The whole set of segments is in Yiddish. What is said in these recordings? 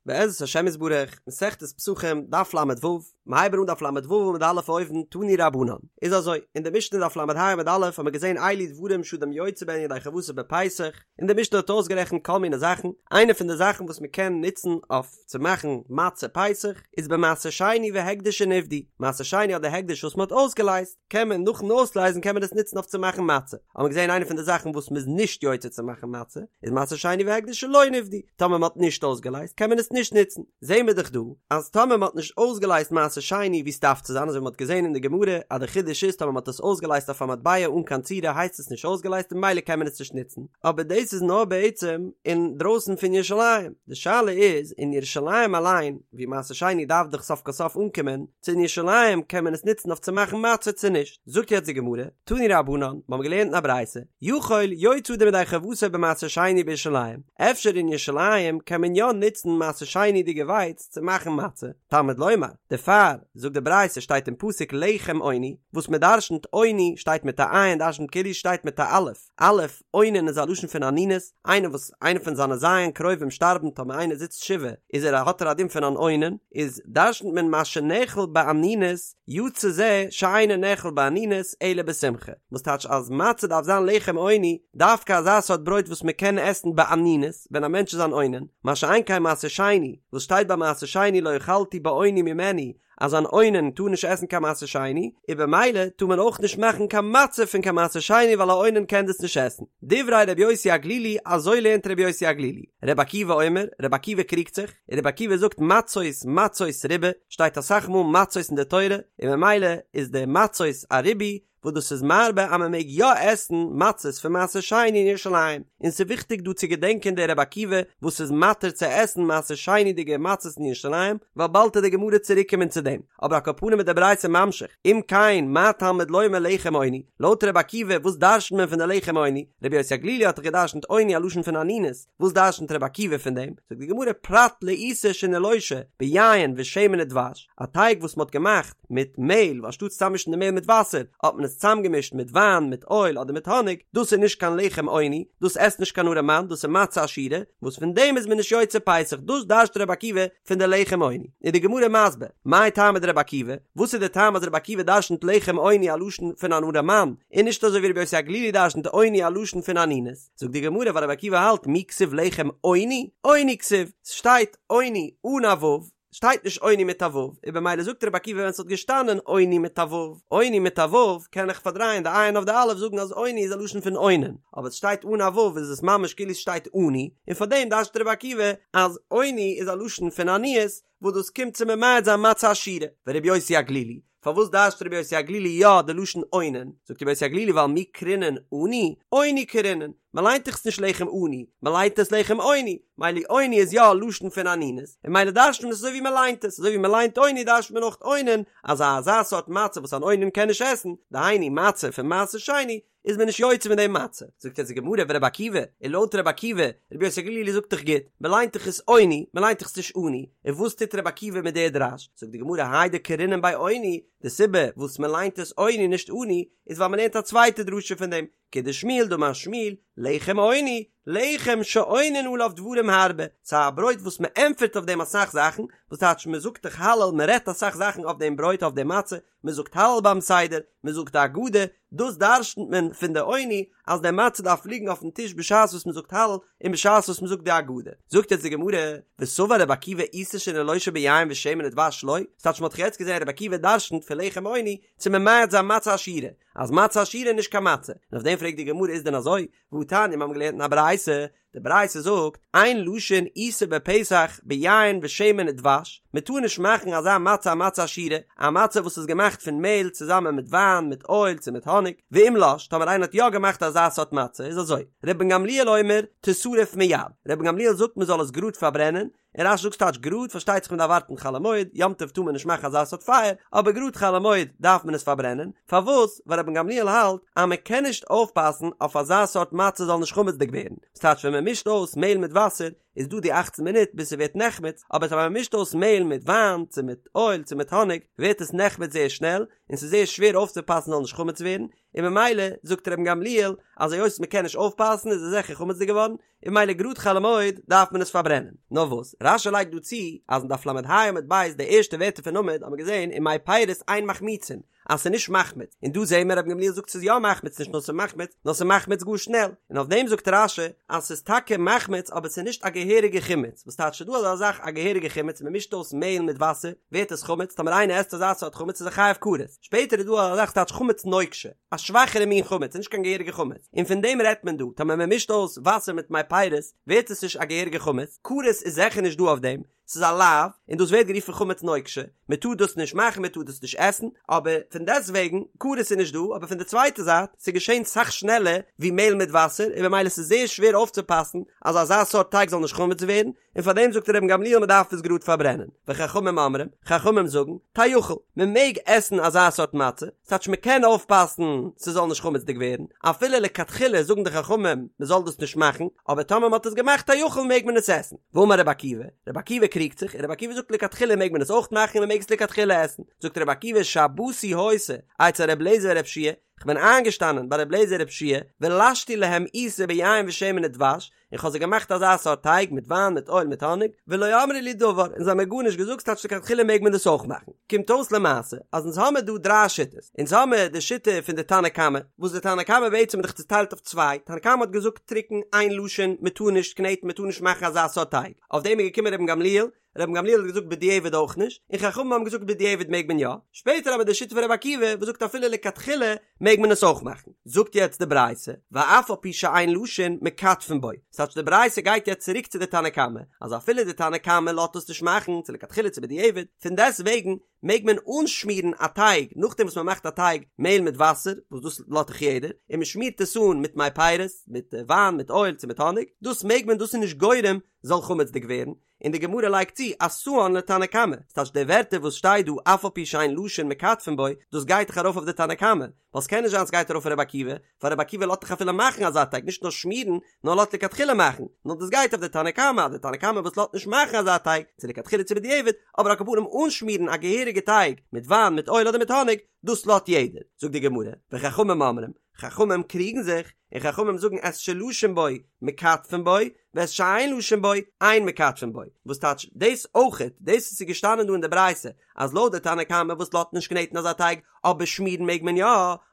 בעזרת השם יתברך, מסכת פסחים, דף ל"ו, מ'הייבן אן דף ל"ו עמוד א' אויבן, תנו רבנן. איז אזוי, אין די משנה דף ל"ה עמוד א' האבן מיר געזען אלו דברים שאדם יוצא בהן ידי חובתו בפסח, און די משנה האט אויסגערעכנט כל מיני זאכן, איינע פון די זאכן וואס מ'קען נוצן אויף צו מאכן מצה פסח, איז במעשר שני והקדש שנפדו, מעשר שני אדער הקדש וואס מ'האט אויסגעלייזט, קען מען נאכן אויסלייזן קען מען עס נוצן אויף צו מאכן מצה, האבן מיר געזען איינע פון די זאכן וואס מ'איז נישט יוצא צו מאכן מצה, איז מעשר שני והקדש שלא נפדו, טאמער מ'האט נישט אויסגעלייזט קען מען עס נישט נוצן, זעהן מיר דאך דא אז טאמער מ'האט נישט אויסגעלייזט מעשר שני ווי ס'דארף צו זיין אזוי ווי מ'האט געזען אין די גמרא אז די חידוש איז טאמער מ'האט עס אויסגעלייזט אויף א מטבע אן קיין צורה הייסט עס נישט אויסגעלייזט און ממילא קען מען עס נישט נוצן, אבער דאס איז נאר בעצם אין דרויסן פון ירושלים, די שאלה איז אין ירושלים אליין ווי מעשר שני דארף דאך סוף כל סוף אנקומען, צו אין ירושלים קען מען עס נוצן אויף צו מאכן מצה צו נישט, זאגט יעצט די גמרא, תנו רבנן, מיר האבן געלערנט אין א ברייתא, יכול יוצא אדם ידי חובתו במעשר שני בירושלים, אפשר אין ירושלים קען מען יא נוצן מעשר שני'דיגע ווייץ צו מאכן מצה, תלמוד לומר, דערפאר, זאגט די ברייתא שטייט אין פסוק לחם עוני, וואס מען דרשנ'ט עוני שטייט מיט א עין דרשנ'ט כאילו שטייט מיט א אלף, אלף, אונן איז א לשון פון אנינות, איינער וואס איינער פון זיינע ז' קרובים שטארבן טאמער איינער זיצט שבעה איז ער האט ער א דין פון אן אונן, איז דרשנ'ט מען מה שנאכל באנינות יצא זה שאינו נאכל באנינות אלא בשמחה, וואס טייטש אז מצה דארף זיין לחם עוני, דווקא אזא סארט ברויט וואס מען קען עסן באנינות ווען א מענטש איז אן אונן, מה שאין כן מעשר שני, וואס שטייט ביי מעשר שני לא אכלתי באוני ממנו, אז אן אונן טאר נישט עסן קיין מעשר שני, און במילא טאר מען אויך נישט מאכן קיין מצה פון קיין מעשר שני ווייל א אונן קען דאס נישט עסן. דברי רבי יוסי הגלילי, אזוי לערנט רבי יוסי הגלילי. רבי עקיבא אומר, רבי עקיבא קריגט זיך, און רבי עקיבא זאגט מצות מצות ריבה, שטייט אסאך מאל מצות אין די תורה, און ממילא איז די מצות א ריבוי, וואס דאס איז מרבה אז מען מעג יא עסן מצות פון מעשר שני אין ירושלים, און ס'איז וויכטיג דא צו געדענקען די רבי עקיבא וואס איז מתיר צו עסן מעשר שני'דיגע מצות אין ירושלים, ווייל באלד וועט די גמרא צוריק קומען צו דעם, אבער על כל פנים איז די ברייתא ממשיך, אם כן מה תלמוד לומר לחם עוני, לויט רבי עקיבא וואס דרש'נט מען פון די לחם עוני, רבי יוסי הגלילי האט דאך געדרש'נט עוני א לשון פון אנינות, וואס דרש'נט רבי עקיבא פון דעם? זאגט די גמרא פרט לעיסה שנלושה ביין ושמן ודבש, א טייג וואס מען האט געמאכט מיט מעהל, אנשטאט צוזאממישן די מעהל מיט וואסער, האט מען עס צוזאמגעמישט מיט וויין, מיט אויל אדער מיט האניג, דאס איז נישט קיין לחם עוני, דאס עסט נישט קיין ארעמאן, דאס איז מצה עשירה, וואס פון דעם איז מען נישט יוצא פסח, דאס דרש'ט רבי עקיבא פון די לחם עוני. איז די גמרא מסביר, מאי טעמא דרבי עקיבא, וואס איז די טעם אז רבי עקיבא דרש'נט לחם עוני א לשון פון אן ארעמאן, און נישט אזוי ווי רבי יוסי הגלילי דרש'נט עוני א לשון פון אנינות? זאגט די גמרא ווייל רבי עקיבא האלט מי כתיב לחם עוני, עוני כתיב, ס'שטייט עוני אן א ו', שטייט נישט עוני מיט א ו', און במילא זאגט רבי עקיבא ווען ס'האט געשטאנען עוני מיט א ו', עוני מיט א ו', קען איך פארדרייען די עין אויף די אלף זאגן אז עוני איז א לשון פון אונן, אבער ס'שטייט אן א ו' איז עס ממש כאילו ס'שטייט עני, און פארדעם דרש'ט רבי עקיבא אז עוני איז א לשון פון עניות, וואס דאס קומט צו ממעט זיין מצה עשירה, ורבי יוסי הגלילי, פארוואס דרש'ט רבי יוסי הגלילי יא די לשון אונן? זאגט רבי יוסי הגלילי ווייל מי קרינן עני, עוני קרינן, מען ליינט דאך עס נישט לחם עני, מען ליינט עס לחם עוני, מילא עוני איז יא א לשון פון אנינות, און מילא דרש'ט מען עס אזוי ווי מען ליינט עס, אזוי ווי מען ליינט עוני דרש'ט מען אויך אונן, אז אזא סארט מצה וואס אן אונן קען נישט עסן, דהיינו מצה פון מעשר שני, איז מען נישט יוצא מיט דעם מצה. זאגט יעצט די גמרא ורבי עקיבא, און לויט רבי עקיבא, רבי יוסי הגלילי זאגט דאך גוט, מען ליינט דאך עס עוני, מען ליינט דאך עס נישט עני, און וואס טוט רבי עקיבא מיט דער דרש? זאגט די גמרא האי דקרינן ביה עוני, די סיבה וואס מען ליינט עס עוני נישט עני, איז ווייל מען לערנט א צווייטע דרשה פון דעם, כדשמואל דאמר שמואל, לחם עוני, לחם שעונין עליו דברים הרבה, ס'איז א ברויט וואס מען ענטפערט אויף דעם אסאך זאכן, וואס טייטש מען זאגט דאך הלל, מען רעדט אסאך זאכן אויף דעם ברויט אויף דעם מצה, מען זאגט הלל ביים סדר, מען זאגט די הגדה, דאס דרש'נט מען פון די עוני אז די מצה דארף ליגן אויפן טיש בשעת וואס מען זאגט הלל און בשעת וואס מען זאגט די הגדה. זאגט יעצט די גמרא, וסבר רבי עקיבא עיסה שנלושה ביין ושמן ודבש לא, ס'טייטש מען האט דאך יעצט געזען רבי עקיבא דרש'נט פון לחם עוני צו ממעט זיין מצה עשירה, אז מצה עשירה איז נישט קיין מצה, און אויף דעם פרעגט די גמרא איז דען אזוי? והתניא מיר האבן געלערנט אין א ברייתא, די ברייתא זאגט, אין לשין עיסה בפסח ביין ושמן ודבש, מען טאר נישט מאכן אזא מצה א מצה עשירה, א מצה וואס איז געמאכט פון מעהל צוזאמען מיט וויין, מיט אויל צו מיט האניג, ואם לש, טאמער איינער האט יא געמאכט אזא סארט מצה, איז אזוי, רבן גמליאל אומר, תשרף מיד, רבן גמליאל זאגט מען זאל עס גראד פארברענען, און רש"י זאגט ס'טייטש גראד, פארשטייט זיך מען דארף ווארטן חול המועד, יום טוב טאר מען נישט מאכן אזא סארט פייער, אבער גראד חול המועד דארף מען עס פארברענען, פארוואס? ווייל רבן גמליאל האלט אז מען קען נישט אויפפאסן אויף אזא סארט מצה זאל נישט חמצ'דיג ווערן, ס'טייטש ווען מען מישט אויס מעהל מיט וואסער. איז דא די אכצן מינוט ביז ס'ווערט נחמץ, אבער טאמער מ'מישט אויס מעהל מיט וויין צו מיט אויל צו מיט האניג ווערט עס נחמץ זייער שנעל, און ס'איז זייער שווער אויפצופאסן זאל נישט חמץ ווערן, און ממילא זאגט רבן גמליאל אז היות מ'קען נישט אויפפאסן איז עס זיכער חמצ'דיג געווארן, און ממילא גראד חול המועד דארף מען עס פארברענען. נאר וואס, רש"י לייגט דא צו אז אין דף ל"ה עמוד ב' די ערשטע ווערטער פון עמוד האט מען געזען ומי פירות אין מחמיצין אז ס'איז נישט מחמיץ, און דא זעהן מיר רבן גמליאל זאגט ס'איז יא מחמיץ נישט נאר ס'איז מחמיץ נאר ס'איז מחמיץ גאר שנעל, און אויף דעם זאגט רש"י אז ס'איז טאקע מחמיץ אבער ס'איז נישט א געהעריגע חימוץ, וואס טייטש ס'איז דא אזא זאך א געהעריגע חימוץ מ'מישט אויס מעהל מיט וואסער ווערט עס חמץ טאמער איינער עסט אזא סארט חמץ איז ער חייב כרת, שפעטער איז דא אזא זאך ס'טייטש חמץ נוקשה. א שוואכערע מין חמץ, נישט קיין געהעריגע חמץ, און פון דעם רעדט מען דא, טאמער מען מישט אויס וואסער מיט מי פירות, ווערט עס נישט א געהעריגע חמץ, כרת איז זיכער נישט דא אויף דעם, ס'איז א לאו, און דאס ווערט גערופן חמץ נוקשה, מען טאר דאס נישט מאכן, מען טאר דאס נישט עסן, אבער פון דעסט וועגן, כרת איז נישט דא, אבער פון די צווייטע זייט, ס'איז געשען סאך שנעלער ווי מעהל מיט וואסער, און במילא ס'איז זייער שווער אויפצופאסן אז אזא סארט טייג זאל נישט חמץ ווערן, און פאר דעם זאגט רבן גמליאל מען דארף עס גראד פארברענען, וחכמים אומרים, חכמים זאגן, תאכל, מען מעג עסן אזא סארט מצה, ס'טייטש מען קען אויפפאסן ס'זאל נישט חמצ'דיג ווערן, אפילו לכתחילה זאגן די חכמים מען זאל דאס נישט מאכן, אבער טאמער מען האט עס געמאכט תאכל מעג מען עס עסן. ואמר רבי עקיבא, רבי עקיבא קריגט זיך, און רבי עקיבא זאגט לכתחילה מעג מען עס אויך מאכן און מען מעג עס לכתחילה עסן, זאגט רבי עקיבא שבתי היתה אצל רבי אליעזר ורבי יהושע כ'בין איינגעשטאנען ביי רבי אליעזר ורבי יהושע ולשתי להם עיסה ביין ושמן ודבש, און כ'האב זיי געמאכט אזא סארט טייג מיט וויין מיט אויל מיט האניג, ולא אמרו לי דבר, און זיי האבן מיר גארנישט געזאגט, ס'טייטש לכתחילה מעג מען דאס אויך מאכן. קומט אויס למעשה אז אונז האמיר דא דריי שיטות, אונז האמיר די שיטה פון די תנא קמא, וואס די תנא קמא בעצם איז דאך צוטיילט אויף צוויי, תנא קמא האט געזאגט טרוקן אין לשין, מען טאר נישט קנעטן מען טאר נישט מאכן אזא סארט טייג, אויף דעם איז געקומען רבן גמליאל, רבן גמליאל האט געזאגט בדיעבד אויך נישט, און חכמים האבן געזאגט בדיעבד מעג מען יא, שפעטער אבער די שיטה פון רבי עקיבא וואס זאגט אפילו לכתחילה מעג מען עס אויך מאכן. זאגט יעצט די ברייתא, ואף על פי שאין לשין מכתפין בו, ס'טייטש די ברייתא גייט יעצט צוריק צו די תנא קמא, אז אפילו די תנא קמא לאזט עס נישט מאכן, צו לכתחילה צו בדיעבד, פון דעסט וועגן מעג מען אנשמירן א טייג נאכדעם וואס מען מאכט א טייג מעהל מיט וואסער, וואס דאס לאזט דאך יעדער, און מען שמירט עס אן מיט מי פירות, מיט וויין, מיט אויל צו מיט האניג, דאס מעג מען, דאס איז נישט גורם זאל חמצ'דיג ווערן, און די גמרא לייגט צו אתאן לתנא קמא, ס'טייטש די ווערטער וואס שטייט דא אף על פי שאין לשין מכתפין בו, דאס גייט דאך ארויף אויף די תנא קמא, ווייל ס'קען נישט זיין ס'גייט ארויף אויף רבי עקיבא, ווייל רבי עקיבא לאזט דאך אפילו מאכן אזא טייג נישט נאר שמירן, נאר לאזט לכתחילה מאכן, נאר דאס גייט אויף די תנא קמא, אז די תנא קמא וואס לאזט נישט מאכן אזא טייג, צו לכתחילה צו בדיעבד, אבער על כל פנים אנשמירן א געהעריגע טייג מיט וויין מיט אויל אדער מיט האניג, דאס לאזט יעדער, זאגט די גמרא, וחכמים אומרים, חכמים קריגן זיך, און חכמים זאגן את שלשין בו מכתפין בו, ואת שאין לשין בו אין מכתפין בו, וואס טייטש דאס אויכעט, דאס וואס איז געשטאנען דא אין די ברייתא אז לויט די תנא קמא וואס לאזט נישט קנעטן אזא טייג אבער שמירן מעג מען יא,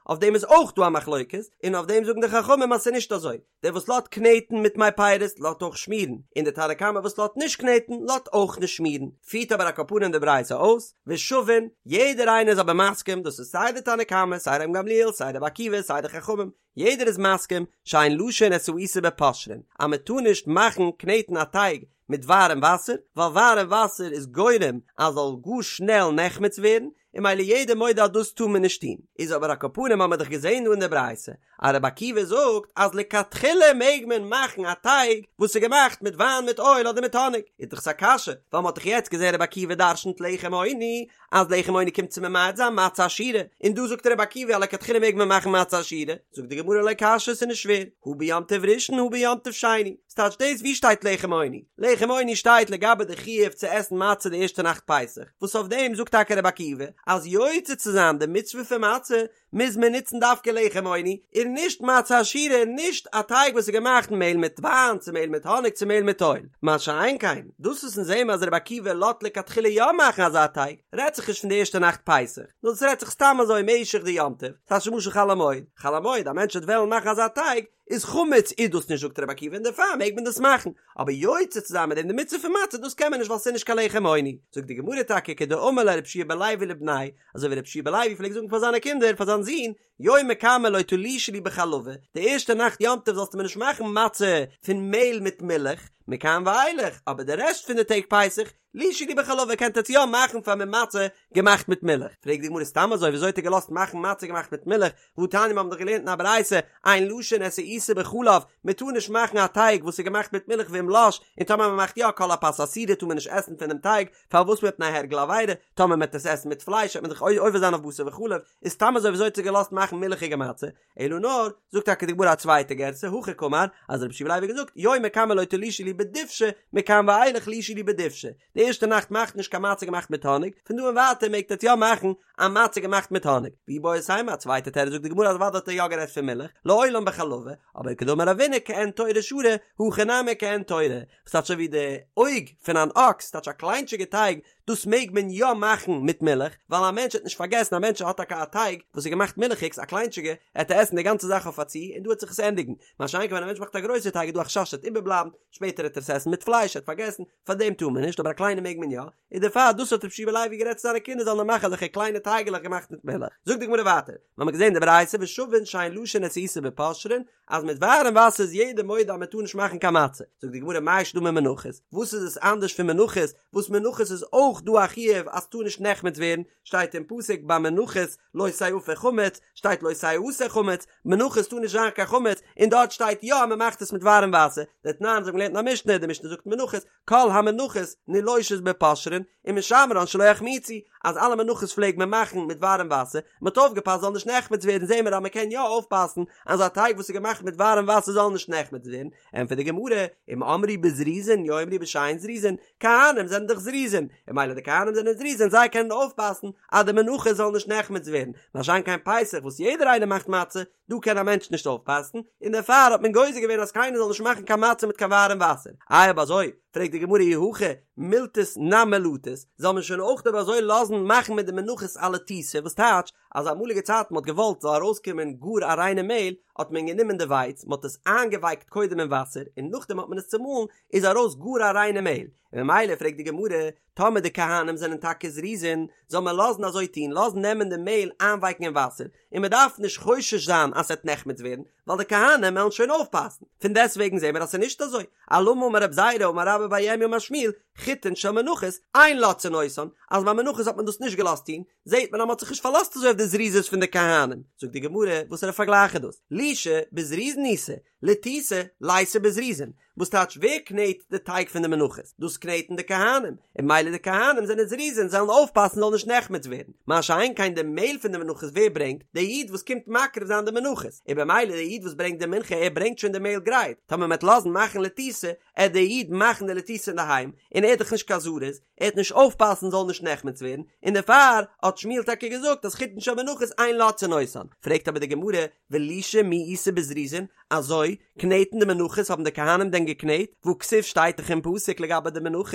אויף דעם איז אויך דא א מחלוקת, און אויף דעם זאגן די חכמים אז ס'איז נישט אזוי, דער וואס לאזט קנעטן מיט מי פירות לאזט אויך שמירן, און די תנא קמא וואס לאזט נישט קנעטן לאזט אויך נישט שמירן, פירט אבער על כל פנים די ברייתא אויס, ושווין, יעדער איינער איז אבער מסכים, דאס איז סיי די תנא קמא, סיי רבן גמליאל, סיי רבי עקיבא, סיי די חכמים, יעדער איז מסכים, שאין לשין את העיסה בפושרין, אז מען טאר נישט מאכן קנעטן א טייג מיט ווארעם וואסער, ווייל ווארעם וואסער איז גורם אז זאל גאר שנעל נחמץ ווערן, און ממילא יעדער מודה אז דאס טאר מען נישט טון. איז אבער על כל פנים האמער דאך געזען דא אין די ברייתא אז רבי עקיבא זאגט אז לכתחילה מעג מען מאכן א טייג וואס איז געמאכט מיט וויין מיט אויל אדער מיט האניג, איז דאך עס א קשיא, ווייל מ'האט דאך יעצט געזען רבי עקיבא דרשנ'ט לחם עוני אז לחם עוני קומט צו ממעט זיין מצה עשירה, און דא זאגט רבי עקיבא אז לכתחילה מעג מען מאכן מצה עשירה, זאגט די גמרא לא קשיא ס'איז נישט שווער, הא ביום טוב ראשון הא ביום טוב שני, ס'טייטש דאס ווי שטייט לחם עוני? לחם עוני שטייט לגבי די חיוב צו עסן מצה די ערשטע נאכט פסח, וואס אויף דעם זאגט טאקע רבי עקיבא אז יוצא צו זיין די מצוה פון מצה מוז מען נוצן דווקא לחם עוני און נישט מצה עשירה און נישט א טייג וואס איז געמאכט מעהל מיט וויין צו מעהל מיט האניג צו מעהל מיט אויל, מה שאין כן דאס וואס אונז זעהן אז רבי עקיבא לאזט לכתחילה יא מאכן אזא טייג רעדט זיך נישט פון די ערשטע נאכט פסח, נאר דאס רעדט זיך סתם אזוי משך די יום טוב, ס'טייטש למשל חול המועד, חול המועד א מענטש וועט וועלן מאכן אזא טייג איז חמץ איז דאס נישט זאגט רבי עקיבא און דערפאר מעג מען דאס מאכן, אבער יוצא צו זיין מיט דעם די מצוה פון מצה דאס קען מען נישט ווייל ס'איז נישט קיין לחם עוני, זאגט די גמרא טאקע כדאמר ליה רבי יהושע בן לוי לבניה, אזוי ווי רבי יהושע בן לוי פלעגט זאגן פאר זיינע קינדער פאר זיין זון, יומא קמא לא תלושו לי בחלבא, די ערשטע נאכט יום טוב זאלסטו מיר נישט מאכן מצה פון מעהל מיט מילך, מכאן ואילך, אבער די רעשט פון די טעג פסח, לישו לי בחלבא קענט עטץ יא מאכן פאר מיר מצה געמאכט מיט מילך, פרעגט די גמרא סתם אזוי וויאזוי האט ער געלאזט מאכן מצה געמאכט מיט מילך, והתניא מיר האבן דאך געלערנט אין א ברייתא, אין לשין את העיסה בחלב, מען טאר נישט מאכן א טייג וואס איז געמאכט מיט מילך ואם לש, און טאמער מען מאכט יא כל הפת אסורה טאר מען נישט עסן פונעם טייג, פארוואס מפני הרגל עבירה, טאמער מען וועט עס עסן מיט פלייש וועט מען דאך עובר זיין אויף בשר בחלב, איז סתם אזוי וויאזוי האט ער געלאזט מאכן מילכיגע מצה, אלא נאר, זאגט טאקע די גמרא א צווייטע גירסא, הכי קאמר, אז רבי יהושע בן לוי האט געזאגט, יומא קמא לא תלושו לי. בדובשא, מכאן ואילך לא ישאלו בדובשא, די ערשטע נאכט מאכט נישט קיין מצה געמאכט מיט האניג, פון דא און ווייטער מעגט עטס יא מאכן א מצה געמאכט מיט האניג. ואיבעית אימא, א צווייטע תירוץ זאגט די גמרא אז אוודאי האט ער יא גערעדט פון מילך, לעולם בחלבא, אבער כדאמר רבינא כעין תורא שרי, הכא נמי כעין תורא, וואס טייטש אזוי ווי די אויג פון אן אקס, טייטש א קליינטשיגע טייג, דאס מעג מען יא מאכן מיט מילך, ווייל א מענטש וועט נישט פארגעסן, א מענטש האט טאקע א טייג וואס איז געמאכט מילכיגס, א קליינטשיגע, עט ער עסן די גאנצע זאך אויף א צי, און דא וועט זיך עס ענדיגן. מה שאין כן ווען א מענטש מאכט א גרויסע טייג איז דא א חשש ס'וועט איבערבלייבן, שפעטער וועט ער עס עסן מיט פלייש, ער האט פארגעסן, פאר דעם טאר מען נישט, אבער א קליינע מעג מען יא, און דערפאר דאס האט רבי יהושע בן לוי גערעדט צו זיינע קינדער זאלן נאר מאכן אזעלכע קליינע טייגעלעך געמאכט מיט מילך. זאגט די גמרא ווייטער, מיר האבן געזען די ברייתא ושוין שאין לשין את העיסה בפושרין, אז מיט ווארעם וואסער איז יעדער מודה אז מען טאר נישט מאכן קיין מצה. זאגט די גמרא מאי שנא ממנחות, וואס איז עס אנדערש פון מנחות, וואס מנחות איז אויך דא א חיוב אז ס'טאר נישט נחמץ ווערן, שטייט אין פסוק ביי מנחות לא תאפה חמץ, שטייט לא תעשה חמץ, מנחות טאר נישט זיין קיין חמץ, און דארט שטייט יא אז מען מאכט עס מיט ווארעם וואסער, דתנן אזוי האבן געלערנט אין א משנה, די משנה זאגט מנחות, כל המנחות נילושות בפושרין, ומשמרן שלא יחמיצו, אז אלע מנחות פלעג מען מאכן מיט ווארעם וואסער, מען האט אויפגעפאסט זאל נישט נחמץ ווערן, זעהן מיר אז מען קען יא אויפפאסן אז א טייג וואס איז געמאכט מיט ווארעם וואסער זאל נישט נחמץ ווערן, ענטפערט די גמרא, אם אמרו בזריזין יאמרו בשאין זריזין, כהנים זענען דאך זריזין, און ממילא די כהנים זענען זריזין זיי קענען אויפפאסן אז די מנחות זאל נישט נחמץ ווערן, מה שאין כן פסח וואס יעדער איינער מאכט מצה, דא קען א מענטש נישט אויפפאסן, און דערפאר האט מען גוזר געווען אז קיינער זאל נישט מאכן קיין מצה מיט קיין ווארעם וואסער. איי אויב אזוי, פרעגט די גמרא אי הכי מילתת נמי לתות, זאל מען שוין אויך אויב אזוי לאזן מאכן מיט די מנחות א לתיתה, וואס טייטש אז אמאליגע צייטן מ'האט געוואלט זאל ארויסקומען גאר א ריינע מעהל, האט מען גענומען די ווייץ, מ'האט עס איינגעווייקט קודם אין וואסער, און נאכדעם האט מען עס צומאלן, איז ארויס גאר א ריינע מעהל, און ממילא פרעגט די גמרא, טאמער די כהנים זענען טאקע זריזין, זאל מען לאזן אזוי טון, לאזן נעמען די מעהל איינווייקן אין וואסער, און מען דארף נישט חושש זיין אז ס'עט נחמץ ווערן, ווייל די כהנים וועלן שוין אויפפאסן. פון דעסטוועגן זעהן מיר אז ס'איז נישט אזוי. אלמה אמר רב זירא אמר רבה בר ירמיה אמר שמואל, חיטין של מנחות, אין לותתין אותן, אז ביי מנחות האט מען דאס נישט געלאזט טון, זעהט מען אז מ'האט זיך נישט פארלאזט אזוי אויף די זריזות פון די כהנים. זאגט די גמרא, וואסערע פארגלייך איז דאס? לישה בזריזין איתא, לתיתה ליתא בזריזין, וואס טייטש ווער קנעט די טייג פון די מנחות? דאס קנעטן די כהנים, און ממילא די כהנים זענען זריזין זאלן אויפפאסן זאל נישט נחמץ ווערן, מה שאין כן די מעהל פון די מנחות ווער ברענגט? די איד וואס קומט מקריב זיין די מנחות, און במילא די איד וואס ברענגט די מנחה ער ברענגט שוין די מעהל גרייט, טאמער מ'עט לאזן מאכן לתיתה, עט די איד מאכן די לתיתה אינדערהיים, און ער איז דאך נישט קיין זריז, ער עט נישט אויפפאסן זאל נישט נחמץ ווערן, און דערפאר האט שמואל טאקע געזאגט אז חיטין של מנחות אין לותתין אותן, פרעגט אבער די גמרא, ולישה מי איתא בזריזין, אזוי, קנעטן די מנחות האבן די כהנים דען געקנעט, והכתיב שטייט דאך אין פסוק לגבי די מנחות,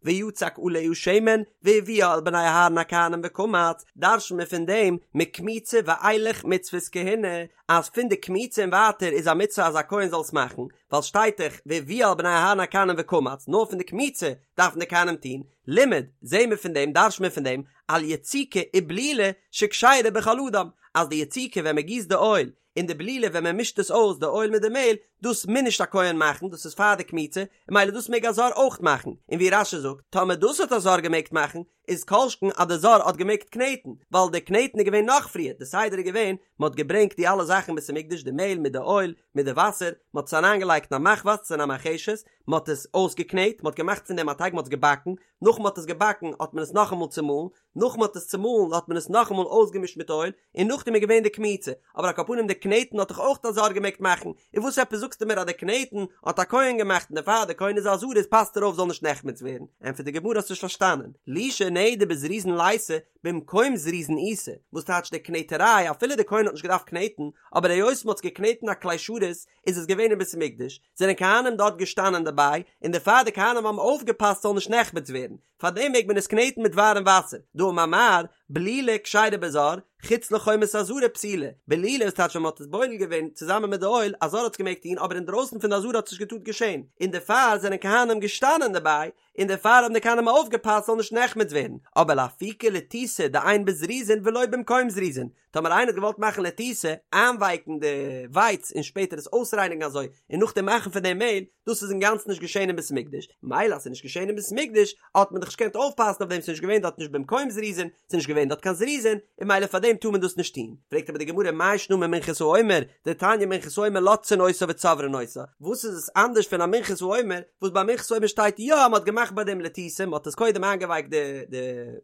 ויצק עליה שמן, והביאה אל בני אהרן הכהנים וקמץ, דרש'נט מען פון דעם, מקמיצה ואילך מצוות כהונה, אז פון די קמיצה און ווייטער איז א מצוה אז א כהן זאל עס מאכן, ווייל שטייט דאך והביאה אל בני אהרן הכהנים וקמץ, נאר פון די קמיצה דארפן די כהנים טון, לימד, זעהן מיר פון דעם, דרש'נט מען פון דעם, על יציקה ובלילה שכשרה בכל אדם, אז די יציקה ווען מען גיסט די אויל, און די בלילה ווען מען מישט עס אויס די אויל מיט די מעהל, דאס מוז נישט א כהן מאכן, דאס איז פאר די קמיצה, און ממילא דאס מעג א זר אויך מאכן, און ווי רש"י זאגט, טאמער דאס האט א זר געמעגט מאכן, איז כל שכן אז די זר האט געמעגט קנעטן, ווייל די קנעטן איז געווען נאך פריער, די סדר איז געווען, מען האט געברענגט די אלע זאכן בית המקדש, די מעהל מיט די אויל, מיט די וואסער, מען האט עס אריינגעלייגט אין א מחבת אין א מרחשת, מען האט עס אויסגעקנעט, מען האט געמאכט פון דעם א טייג, מען האט עס געבאקן, נאך מען האט עס געבאקן האט מען עס נאכאמאל צומאלן, נאך מען האט עס צומאלן האט מען עס נאכאמאל אויסגעמישט מיט אויל, און נאכדעם איז געווען די קמיצה, אבער על כל פנים די קנעטן האט דאך אויך א זר געמעגט מאכן, און וואס עפעס זאגסטו מיר אז די קנעטן האט א כהן געמאכט און דערפאר די כהן איז א זריז פאסט ער אויף זאל נישט נחמץ ווערן, ענטפערט די גמרא האסט נישט פארשטאנען, לישה נהי דבזריזין ליתא במקום זריזין איתא, וואס טייטש די קנעטעריי אפילו די כהן האט נישט געדארפט קנעטן, אבער היות מען האט עס געקנעטן א כלי שרת איז עס געווען אין בית המקדש, זענען כהנים דארט געשטאנען דערביי, און דערפאר די כהנים האבן אויפגעפאסט ס'זאל נישט נחמץ ווערן, פארדעם מעג מען עס קנעטן מיט ווארעם וואסער, דאמר מר, בלילה כשרה בזר, חוץ לחומת העזרה פסולה, בלילה איז טייטש ווען מען האט עס בולל געווען צוזאמען מיט די אויל, א זר האט עס געמעגט טון אבער אינדרויסן פון די עזרה האט עס נישט געטארט געשען, און דערפאר זענען כהנים געשטאנען דערביי, און דערפאר האבן די כהנים אויפגעפאסט ס'זאל נישט נחמץ ווערן, אבער לאפוקי לתיתה דאין בזריזין ולא במקום זריזין, טאמער איינער האט געוואלט מאכן לתיתה, איינווייקן די ווייץ און שפעטער עס אויסרייניגן אזוי און נאכדעם מאכן פון דעם מעהל, דאס איז אינגאנצן נישט געשעהן אין בית המקדש, מילא אז ס'איז נישט געשעהן אין בית המקדש האט מען דאך נישט געקענט אויפפאסן אויף דעם, ס'איז נישט געווען דארט נישט במקום זריזין, ס'איז נישט געווען דארט קיין זריזין, און מילא פאר דעם טאר מען דאס נישט טון. פרעגט אבער די גמרא מאי שנא ממנחת העומר, דתניא מנחת העומר לותתין אותה וצוברין אותה, וואס איז עס אנדערש פון א מנחת העומר, וואס ביי מנחת העומר שטייט יא אז מ'האט געמאכט. געמאכט ביי דעם לתיתה, מען האט עס קודם איינגעווייקט די די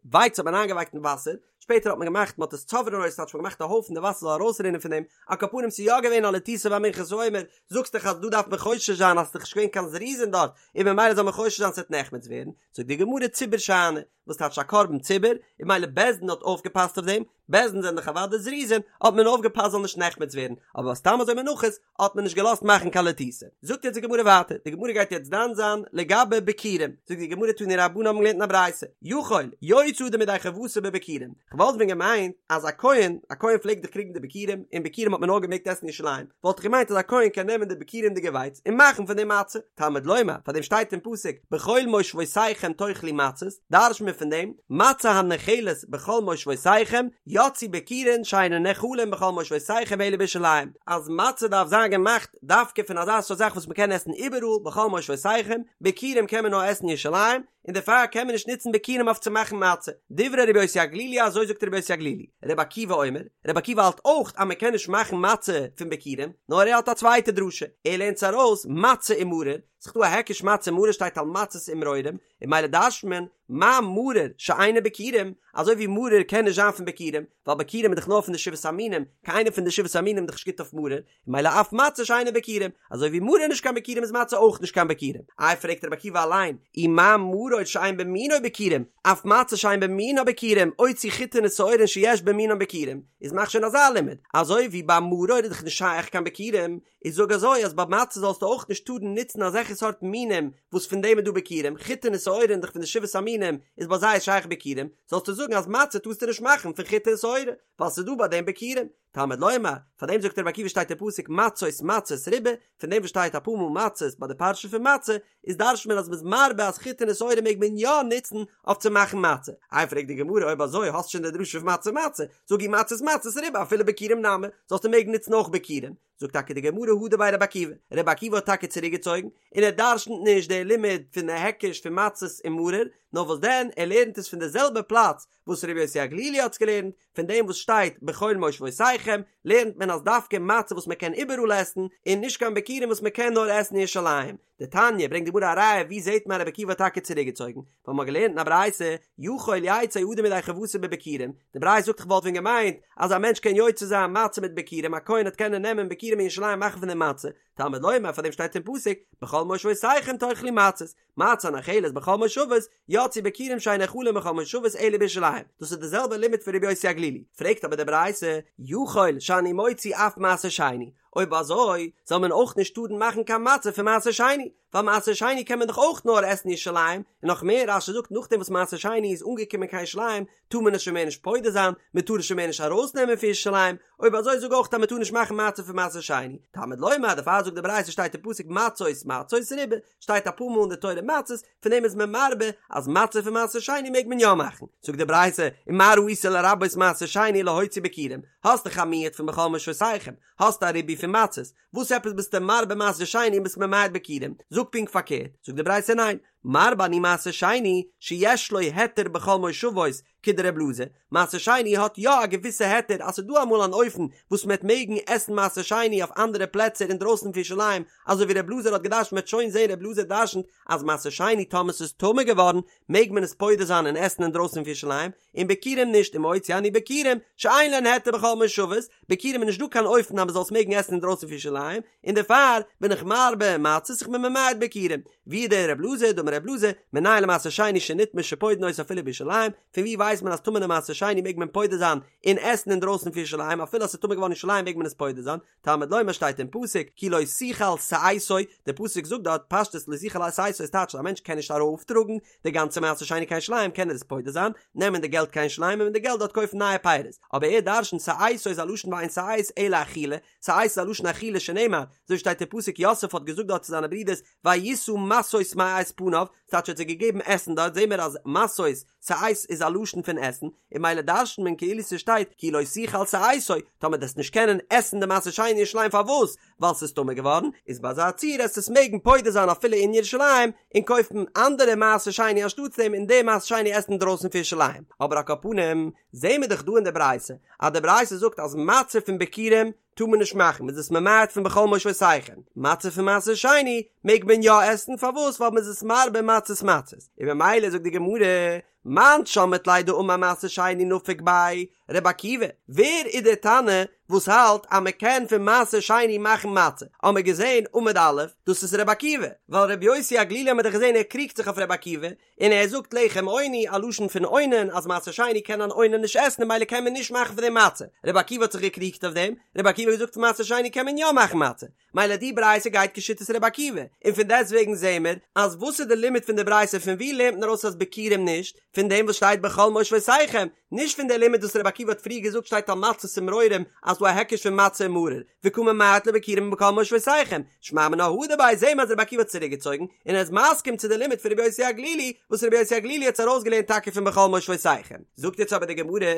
ווייץ האט מען איינגעווייקט אין וואסער, שפעטער האט מען געמאכט מען האט עס צוברין אותו ס'טייטש מען האט געמאכט א הויפן די וואסער זאל ארויסרינען פון דעם, על כל פנים ס'איז יא געווען א לתיתה ביי מנחת העומר, זאגסט דאך אז דא דארף מען חושש זיין אז ס'איז דאך נישט געווען קיין זריזין דארט, און ממילא זאל מען חושש זיין ס'וועט נחמץ ווערן, זאגט די גמרא ציבור שאני, וואס טייטש א קרבן ציבור, און ממילא בית דין האט אויפגעפאסט אויף דעם, בית דין זענען דאך אוודאי זריזין, האט מען אויפגעפאסט זאל נישט נחמץ ווערן, אבער סתם אזוי מנחות האט מען נישט געלאזט מאכן קיין לתיתה. זאגט יעצט די גמרא ווייטער, די גמרא גייט יעצט דן זיין לגבי ביכורים, זאגט די גמרא תנו רבנן האבן געלערנט אין א ברייתא, יכול יוצא אדם ידי חובתו בביכורים, כ'וואלט ווען געמיינט אז א כהן, א כהן פלעגט דאך קריגן די ביכורים, און ביכורים האט מען נאר געמעגט עסן אין ירושלים, וואלט איך געמיינט אז א כהן קען נעמען די ביכורים'דיגע ווייץ און מאכן פון דעם מצה, תלמוד לומר, פאר דעם שטייט אין פסוק בכל מושבותיכם תאכלו מצות, דרש'ט מען פון דעם, מצה הנאכלת בכל מושבותיכם, יצאו ביכורין שאינן נאכלין בכל מושבותיכם אלא בירושלים, אז מצה דארף זיין געמאכט דווקא פון אזא סארט זאך וואס מען קען עסן איבעראל בכל מושבותיכם, ביכורים קען מען נאר עסן אין ירושלים, און דערפאר קען מען נישט נוצן ביכורים אויף צו מאכן מצה. דברי רבי יוסי הגלילי אזוי זאגט רבי יוסי הגלילי. רבי עקיבא אומר, רבי עקיבא האלט אויך אז מען קען נישט מאכן מצה פון ביכורים, נאר ער האט א צווייטע דרשה, ער לערנט עס ארויס מצה ומרור, ס'איז דא א היקש מצה ומרור שטייט על מצות ומרורים, און ממילא דרש'ט מען מה מרור שאינו ביכורים, אזוי ווי מרור קען נישט זיין פון ביכורים, ווייל ביכורים איז דאך נאר פון די שבעת המינים, קיין איינע פון די שבעת המינים איז דאך נישט גוט אויף מרור, ממילא אף מצה שאינה ביכורים, אזוי ווי מרור איז נישט קיין ביכורים איז מצה אויך נישט קיין ביכורים. איי פרעגט רבי עקיבא אליין, ומה מרור שאין במינו ביכורים, אף מצה שאין במינה ביכורים, אוציא חיטין ושעורין שיש במינן ביכורים, איז מאך שוין אזא לימוד, אזוי ווי ביי מרור איז דאך נישט שייך קיין ביכורים, איז זאג אזוי אז ביי מצה זאלסטו אויך נישט טארן נוצן אזעלכע סארט מינים וואס פון דעם איז דא ביכורים, חיטין ושעורין דאך פון די שבעת המינים איז ביי זיי שייך ביכורים, זאלסטו זאגן אז מצה טארסטו נישט מאכן פון חיטה און שעורה, ווייל ס'איז דא ביי דעם ביכורים. תלמוד לומר, פאר דעם זאגט רבי עקיבא שטייט אין פסוק מצות מצות ריבה, פון דעם וואס שטייט אפאר מאל מצות ביי די פרשה פון מצה, איז דרש'ט מען אז מ'איז מרבה אז חיטין און שעורה מעג מען יא נוצן אויף צו מאכן מצה. איי פרעגט די גמרא אויב אזוי האסט שוין די דרשה פון מצה מצה, זאג אי מצות מצות ריבה אפילו ביכורים נמי, זאלסטו מעגן נוצן אויך ביכורים. זאגט טאקע די גמרא הדר ביה רבי עקיבא, רבי עקיבא האט טאקע צוריק געצויגן, און ער דרש'נט נישט די לימוד פון די היקש פון מצות און מרור, נאר וואס דען ער לערנט עס פון די זעלבע פלאץ וואס רבי יוסי הגלילי האט עס געלערנט, פון דעם וואס שטייט בכל מושבותיכם לערנט מען אז דווקא מצה וואס מען קען איבעראל עסן, און נישט קיין ביכורים וואס מען קען נאר עסן אין ירושלים. דתניא, ברענגט די גמרא א ראיה ווי זעט מען רבי עקיבא האט טאקע צוריקגעצויגן, ווייל מען האט געלערנט אין א ברייתא, יכול יצא אדם ידי חובתו בביכורים, די ברייתא זאגט איך וואלט ווען געמיינט אז א מענטש קען יוצא זיין מצה מיט ביכורים, א כהן וועט קענען נעמען ביכורים אין ירושלים מאכן פון דעם מצה, תלמוד לומר פאר דעם שטייט אין פסוק בכל מושבותיכם תאכלו מצות, מצה הנאכלת בכל מושבות, יצאו ביכורים שאין נאכלין בכל מושבות אלא בירושלים, דאס איז די זעלבע לימוד פון רבי יוסי הגלילי, פרעגט אבער די ברייתא, יכול שאני מוציא אף מעשר שני, אויב אזוי זאל מען אויך נישט טארן מאכן קיין מצה פון מעשר שני, ווייל מעשר שני קען מען דאך אויך נאר עסן אין ירושלים, און נאך מער רש"י זאגט נאכדעם וואס מעשר שני איז אנגעקומען קיין ירושלים טאר מען עס שוין מער נישט פודה זיין, מען טאר עס שוין מער נישט ארויסנעמען פון ירושלים, אויב אזוי זאג אויך אז מען טאר נישט מאכן מצה פון מעשר שני, תלמוד לומר דערפאר זאגט די ברייתא שטייט אין פסוק מצות מצות ריבה, שטייט אפאר מאל אין די תורה מצות, פון דעם איז מען מרבה אז מצה פון מעשר שני מעג מען יא מאכן, זאגט די ברייתא ומה ראית לרבות מעשר שני להוציא ביכורים, האסט דאך א מיעוט פון בכל מושבותיכם, האסט א ריבוי פון מצות, וואס עפעס ביסטו מרבה מעשר שני און ביסט ממעט ביכורים, זאג פונקט פארקערט, זאגט די ברייתא ניין, מרבה אני מעשר שני שיש לו היתר בכל מושבות כדר' אלעזר, מעשר שני האט יא א געוויסע היתר אז ס'איז דא אמאל אן אופן וואס מ'עט מעגן עסן מעשר שני אויף אנדערע פלעצער אינדרויסן פון ירושלים, אזוי ווי ר' אלעזר האט געדרשנט מ'עט שוין זעהן ר' אלעזר דרשנט אז מעשר שני טאמער ס'איז טמא געווארן מעג מען עס פודה זיין און עסן אינדרויסן פון ירושלים, און ביכורים נישט ומוציא אני ביכורים שאין להן היתר בכל מושבות, ביכורים איז נישט דא קיין אופן אז מ'זאל עס מעגן עסן אינדרויסן פון ירושלים, און דערפאר בין איך מרבה מצות איך בין ממעט ביכורים. ווי איז דער רב אלעזר דאמר רב אלעזר מנין למעשר שני שנטמא שפודין אותו אפילו בירושלים, פון ווי ווייסט מען אז טמא'נע מעשר שני מעג מען פודה זיין און עסן אינדרויסן פון ירושלים אפילו אז ס'איז טמא געווארן אין ירושלים מעג מען עס פודה זיין, תלמוד לומר שטייט אין פסוק כי לא תוכל שאתו, דער פסוק זאגט דארט פשטות לא תוכל שאתו איז טייטש אז א מענטש קען נישט ארויפטראגן די גאנצע מעשר שני קיין ירושלים קען ער עס פודה זיין, נעמען די געלט קיין ירושלים און מיט די געלט דארט קויפן נייע פירות, אבער ער דרשנ'ט שאתו איז א לשון ואין שאת אלא אכילה, שאת איז א לשון אכילה שנאמר, אזוי שטייט אין פסוק יוסף האט געזאגט דארט צו זיינע ברידערס וישא משאות מאת פניו, ס'טייטש ער האט זיי געגעבן עסן דארט זעהן מיר אז משאות, שאת איז א לשון פון עסן, און ממילא דרשנ'ט מען כאילו ס'שטייט כי לא תוכל שאתו, טאמער דו וועסט נישט קענען עסן די מעשר שני אין ירושלים פארוואס? ווייל ס'איז טמא געווארן, איז ביי אזא ציור עסט עס מעגן פודה זיין אפילו אין ירושלים, און קויפן אנדערע מעשר שני אנשטאטס דעם און די מעשר שני עסן אינדרויסן פון ירושלים. אבער על כל פנים, זעהן מיר דאך דא אין די ברייתא, אז די ברייתא זאגט אז מצה פון ביכורים טאר מען נישט מאכן, מ'איז עס ממעט פון בכל מושבותיכם, מצה פון מעשר שני מעג מען יא עסן, פארוואס? ווייל מ'איז עס מרבה מצות מצות, און ממילא זאגט די גמרא, מאן שמעת ליה דאמר מעשר שני נפיק ביה, ר' עקיבא, ווער איז דער תנא וואס האלט אז מען קען פון מעשר שני מאכן מצה? האמער געזען עמוד א', דאס איז ר' עקיבא, ווייל ר' יוסי הגלילי האמער דאך געזען ער קריגט זיך אויף ר' עקיבא, און ער זאגט לחם עוני, א לשון פון אונן, אז מעשר שני קען אן אונן נישט עסן און ממילא קען מען נישט מאכן פון דעם מצה. ר' עקיבא האט זיך געקריגט אויף דעם, ר' עקיבא האט געזאגט פון מעשר שני קען מען יא מאכן מצה, מילא די ברייתא גייט כשיטת ר' עקיבא, און פון דעסט וועגן זעהן מיר אז וואס איז די לימוד פון די ברייתא פון ווי לערנט מען ארויס אז ביכורים נישט, פון דעם וואס שטייט בכל מושבותיכם, נישט פון די לימוד וואס ר' עקיבא האט פריער געזאגט שטייט על מצות ומרורים אז ס'דא א היקש פון מצה און מרור, וקא ממעט לביכורים בכל מושבותיכם, שמע מינה הדר ביה זעהן מיר אז ר' עקיבא האט צוריק געצויגן, און ער איז מסכים צו די לימוד פון ר' יוסי הגלילי, וואס ר' יוסי הגלילי האט עס ארויסגעלערנט טאקע פון בכל מושבותיכם. זאגט יעצט אבער די גמרא,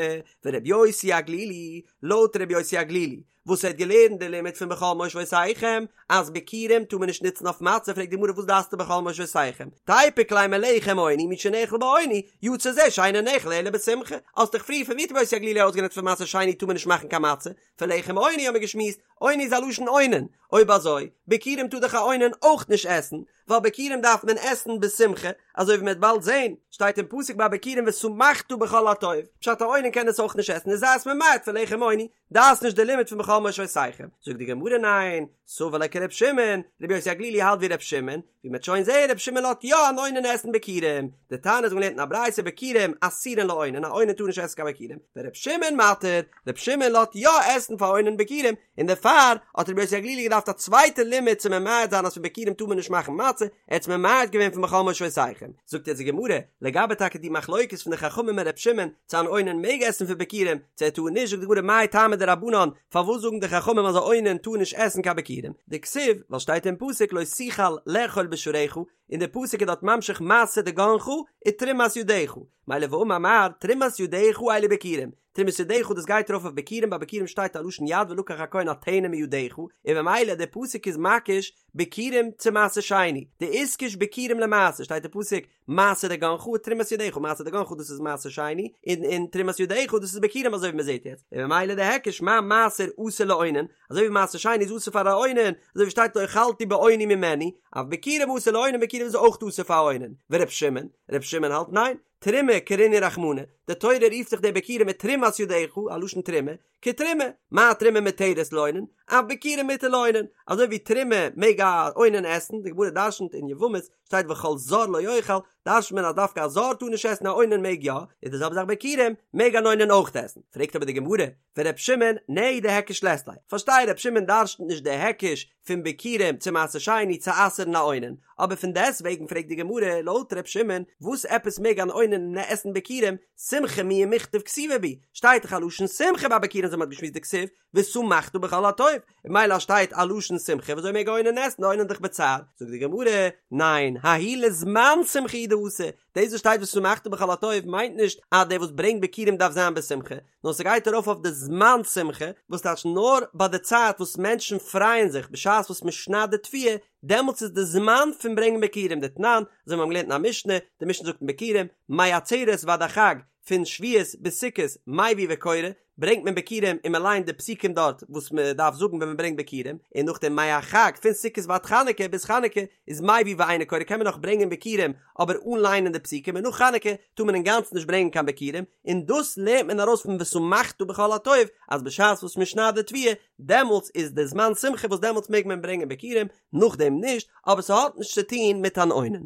ור' יוסי הגלילי, לויט ר' יוסי הגלילי, וואס ער האט געלערנט די לימוד פון בכל מושבותיכם אז ביכורים טאר מען נישט נוצן אויף מצה, פרעגט די גמרא וואס דארפסטו בכל מושבותיכם, תיפוק ליה מלחם עוני מי שנאכל בעוני, יצא זה שאינו נאכל אלא בשמחה, האסט דאך פריער פון ווי האט רבי יוסי הגלילי ארויסגעלערנט פון מעשר שני טאר מען נישט מאכן קיין מצה, פון לחם עוני האט מען געשמועסט, עוני איז א לשון אונן, אויב אזוי, ביכורים טאר דאך א אונן אויך נישט עסן, ווייל ביכורים דארף מען עסן בשמחה, אזוי ווי מען וועט באלד זען, שטייט אין פסוק ביי ביכורים ושמחת בכל הטוב, פשט א אונן קען עס אויך נישט עסן איז זיי עס ממעט פון לחם עוני, דאס נישט די לימוד פון בכל מושבותיכם, זאגט די גמרא ניין, סבר לה כר' שמעון, רבי יוסי הגלילי האלט ווי ר' שמעון, ווי מ'עט שוין זעהן ר' שמעון לאזט יא אן אונן עסן ביכורים, דתניא אזוי געלערנט אין א ברייתא ביכורים אסורין לאונן, א אונן טאר נישט עסן קיין ביכורים, ור' שמעון מתיר, ר' שמעון לאזט יא עסן פאר אונן ביכורים, און דערפאר האט רבי יוסי הגלילי געדארפט א צווייטע לימוד צו ממעט זיין אז פון ביכורים טאר מען נישט מאכן מצה, ער האט עס ממעט געווען פון בכל מושבותיכם. זאגט יעצט די גמרא, לגבי טאקע די מחלוקת פון די חכמים און ר' שמעון, צו אן אונן מעג עסן פון ביכורים, צו ער טאר נישט, זאגט די גמרא מאי טעמא דרבנן, פארוואס זאגן די חכמים אז א אונן טאר נישט עסן קיין ביכורים, דכתיב, ווייל שטייט אין פסוק לא תוכל לאכול בשעריך, און די פסוק איז דארט ממשיך מעשר דגנך ותרומת ידך, מילא ואמר מר, תרומת ידך אלו ביכורים, תרומת ידך דאס גייט ארויף אויף ביכורים, ביי ביכורים שטייט א לשון יד ולקח הכהן הטנא מידך, און ממילא די פסוק איז מקיש ביכורים צו מעשר שני, דאיתקש ביכורים למעשר שטייט אין פסוק מעשר דגנך ותרומת ידך, מעשר דגנך דאס איז מעשר שני, און און תרומת ידך דאס איז ביכורים אזוי ווי מען זעט יעצט, און ממילא די היקש מה מעשר אסור לאונן, אזוי ווי מעשר שני איז אסור פאר א אונן, אזוי ווי שטייט לא אכלתי באוני ממנו, אף ביכורים אסור לאונן ביכורים איז אויך אסור פאר א אונן, ור' שמעון, ר' שמעון האלט ניין, תרומה קרינהו רחמנא, די תורה רופט זיך די ביכורים מיט תרומת ידך, א לשון תרומה, כתרומה, מה תרומה מותרת לאונן, אף ביכורים מותר לאונן, אזוי ווי תרומה מעג א אונן עסן, די גמרא דרשנ'ט אין יבמות, שטייט וכל זר לא יאכל, דרשנ'ט מען אז דווקא א זר טאר נישט עסן א אונן מעג יא, איז די זעלבע זאך ביכורים, מעג אן אונן אויך עסן, פרעגט אבער די גמרא, ור' שמעון, נהי דהיקש לית ליה, פארשטיי ר' שמעון דרשנ'ט נישט די היקש פון ביכורים צו מעשר שני צו אסר'ן א אונן, אבער פון דעסט וועגן פרעגט די גמרא, לויט ר' שמעון, וואס עפעס מעג אן אונן עסן ביכורים, שמחה מיהא מיכתב כתיבא בהו, שטייט דאך א לשון שמחה ביי ביכורים אזוי מ'האט געשמועסט דכתיב, ושמחת בכל הטוב, און ממילא אז שטייט א לשון שמחה וויאזוי מעג א אונן עסן, א אונן איז דאך בצער, זאגט די גמרא, ניין, ההוא לזמן שמחה הוא דאתא, דאס וואס שטייט ושמחת בכל הטוב מיינט נישט אז דער וואס ברענגט ביכורים דארף זיין בשמחה, נאר ס'גייט ארויף אויף די זמן שמחה, וואס טייטש נאר ביי די צייט וואס מענטשן פרייען זיך בשעת וואס מ'שניידט די תבואה, דעמאלטס איז די זמן פון ברענגען ביכורים דתנן, אזוי ווי מיר האבן געלערנט אין א משנה, די משנה זאגט אין ביכורים, מעצרת ועד החג, פון שבועות ביז סוכות, מביא וקורא, ברענגט מען ביכורים און מען ליינט די פסוקים דארט וואס מען דארף זאגן ווען מען ברענגט ביכורים, און נאכדעם מהחג פון סוכות ועד חנוכה ביז חנוכה איז מביא ואינו קורא קען מען נאך ברענגען ביכורים אבער אן ליינען די פסוקים און נאך חנוכה טאר מען אינגאנצן נישט ברענגען קיין ביכורים, און דאס לערנט מען ארויס פון ושמחת בכל הטוב אז בשעת וואס מען שניידט די תבואה דעמאלטס איז די זמן שמחה וואס דעמאלטס מעג מען ברענגען ביכורים, נאכדעם נישט, אבער ס'האט נישט צו טון מיט אן אונן.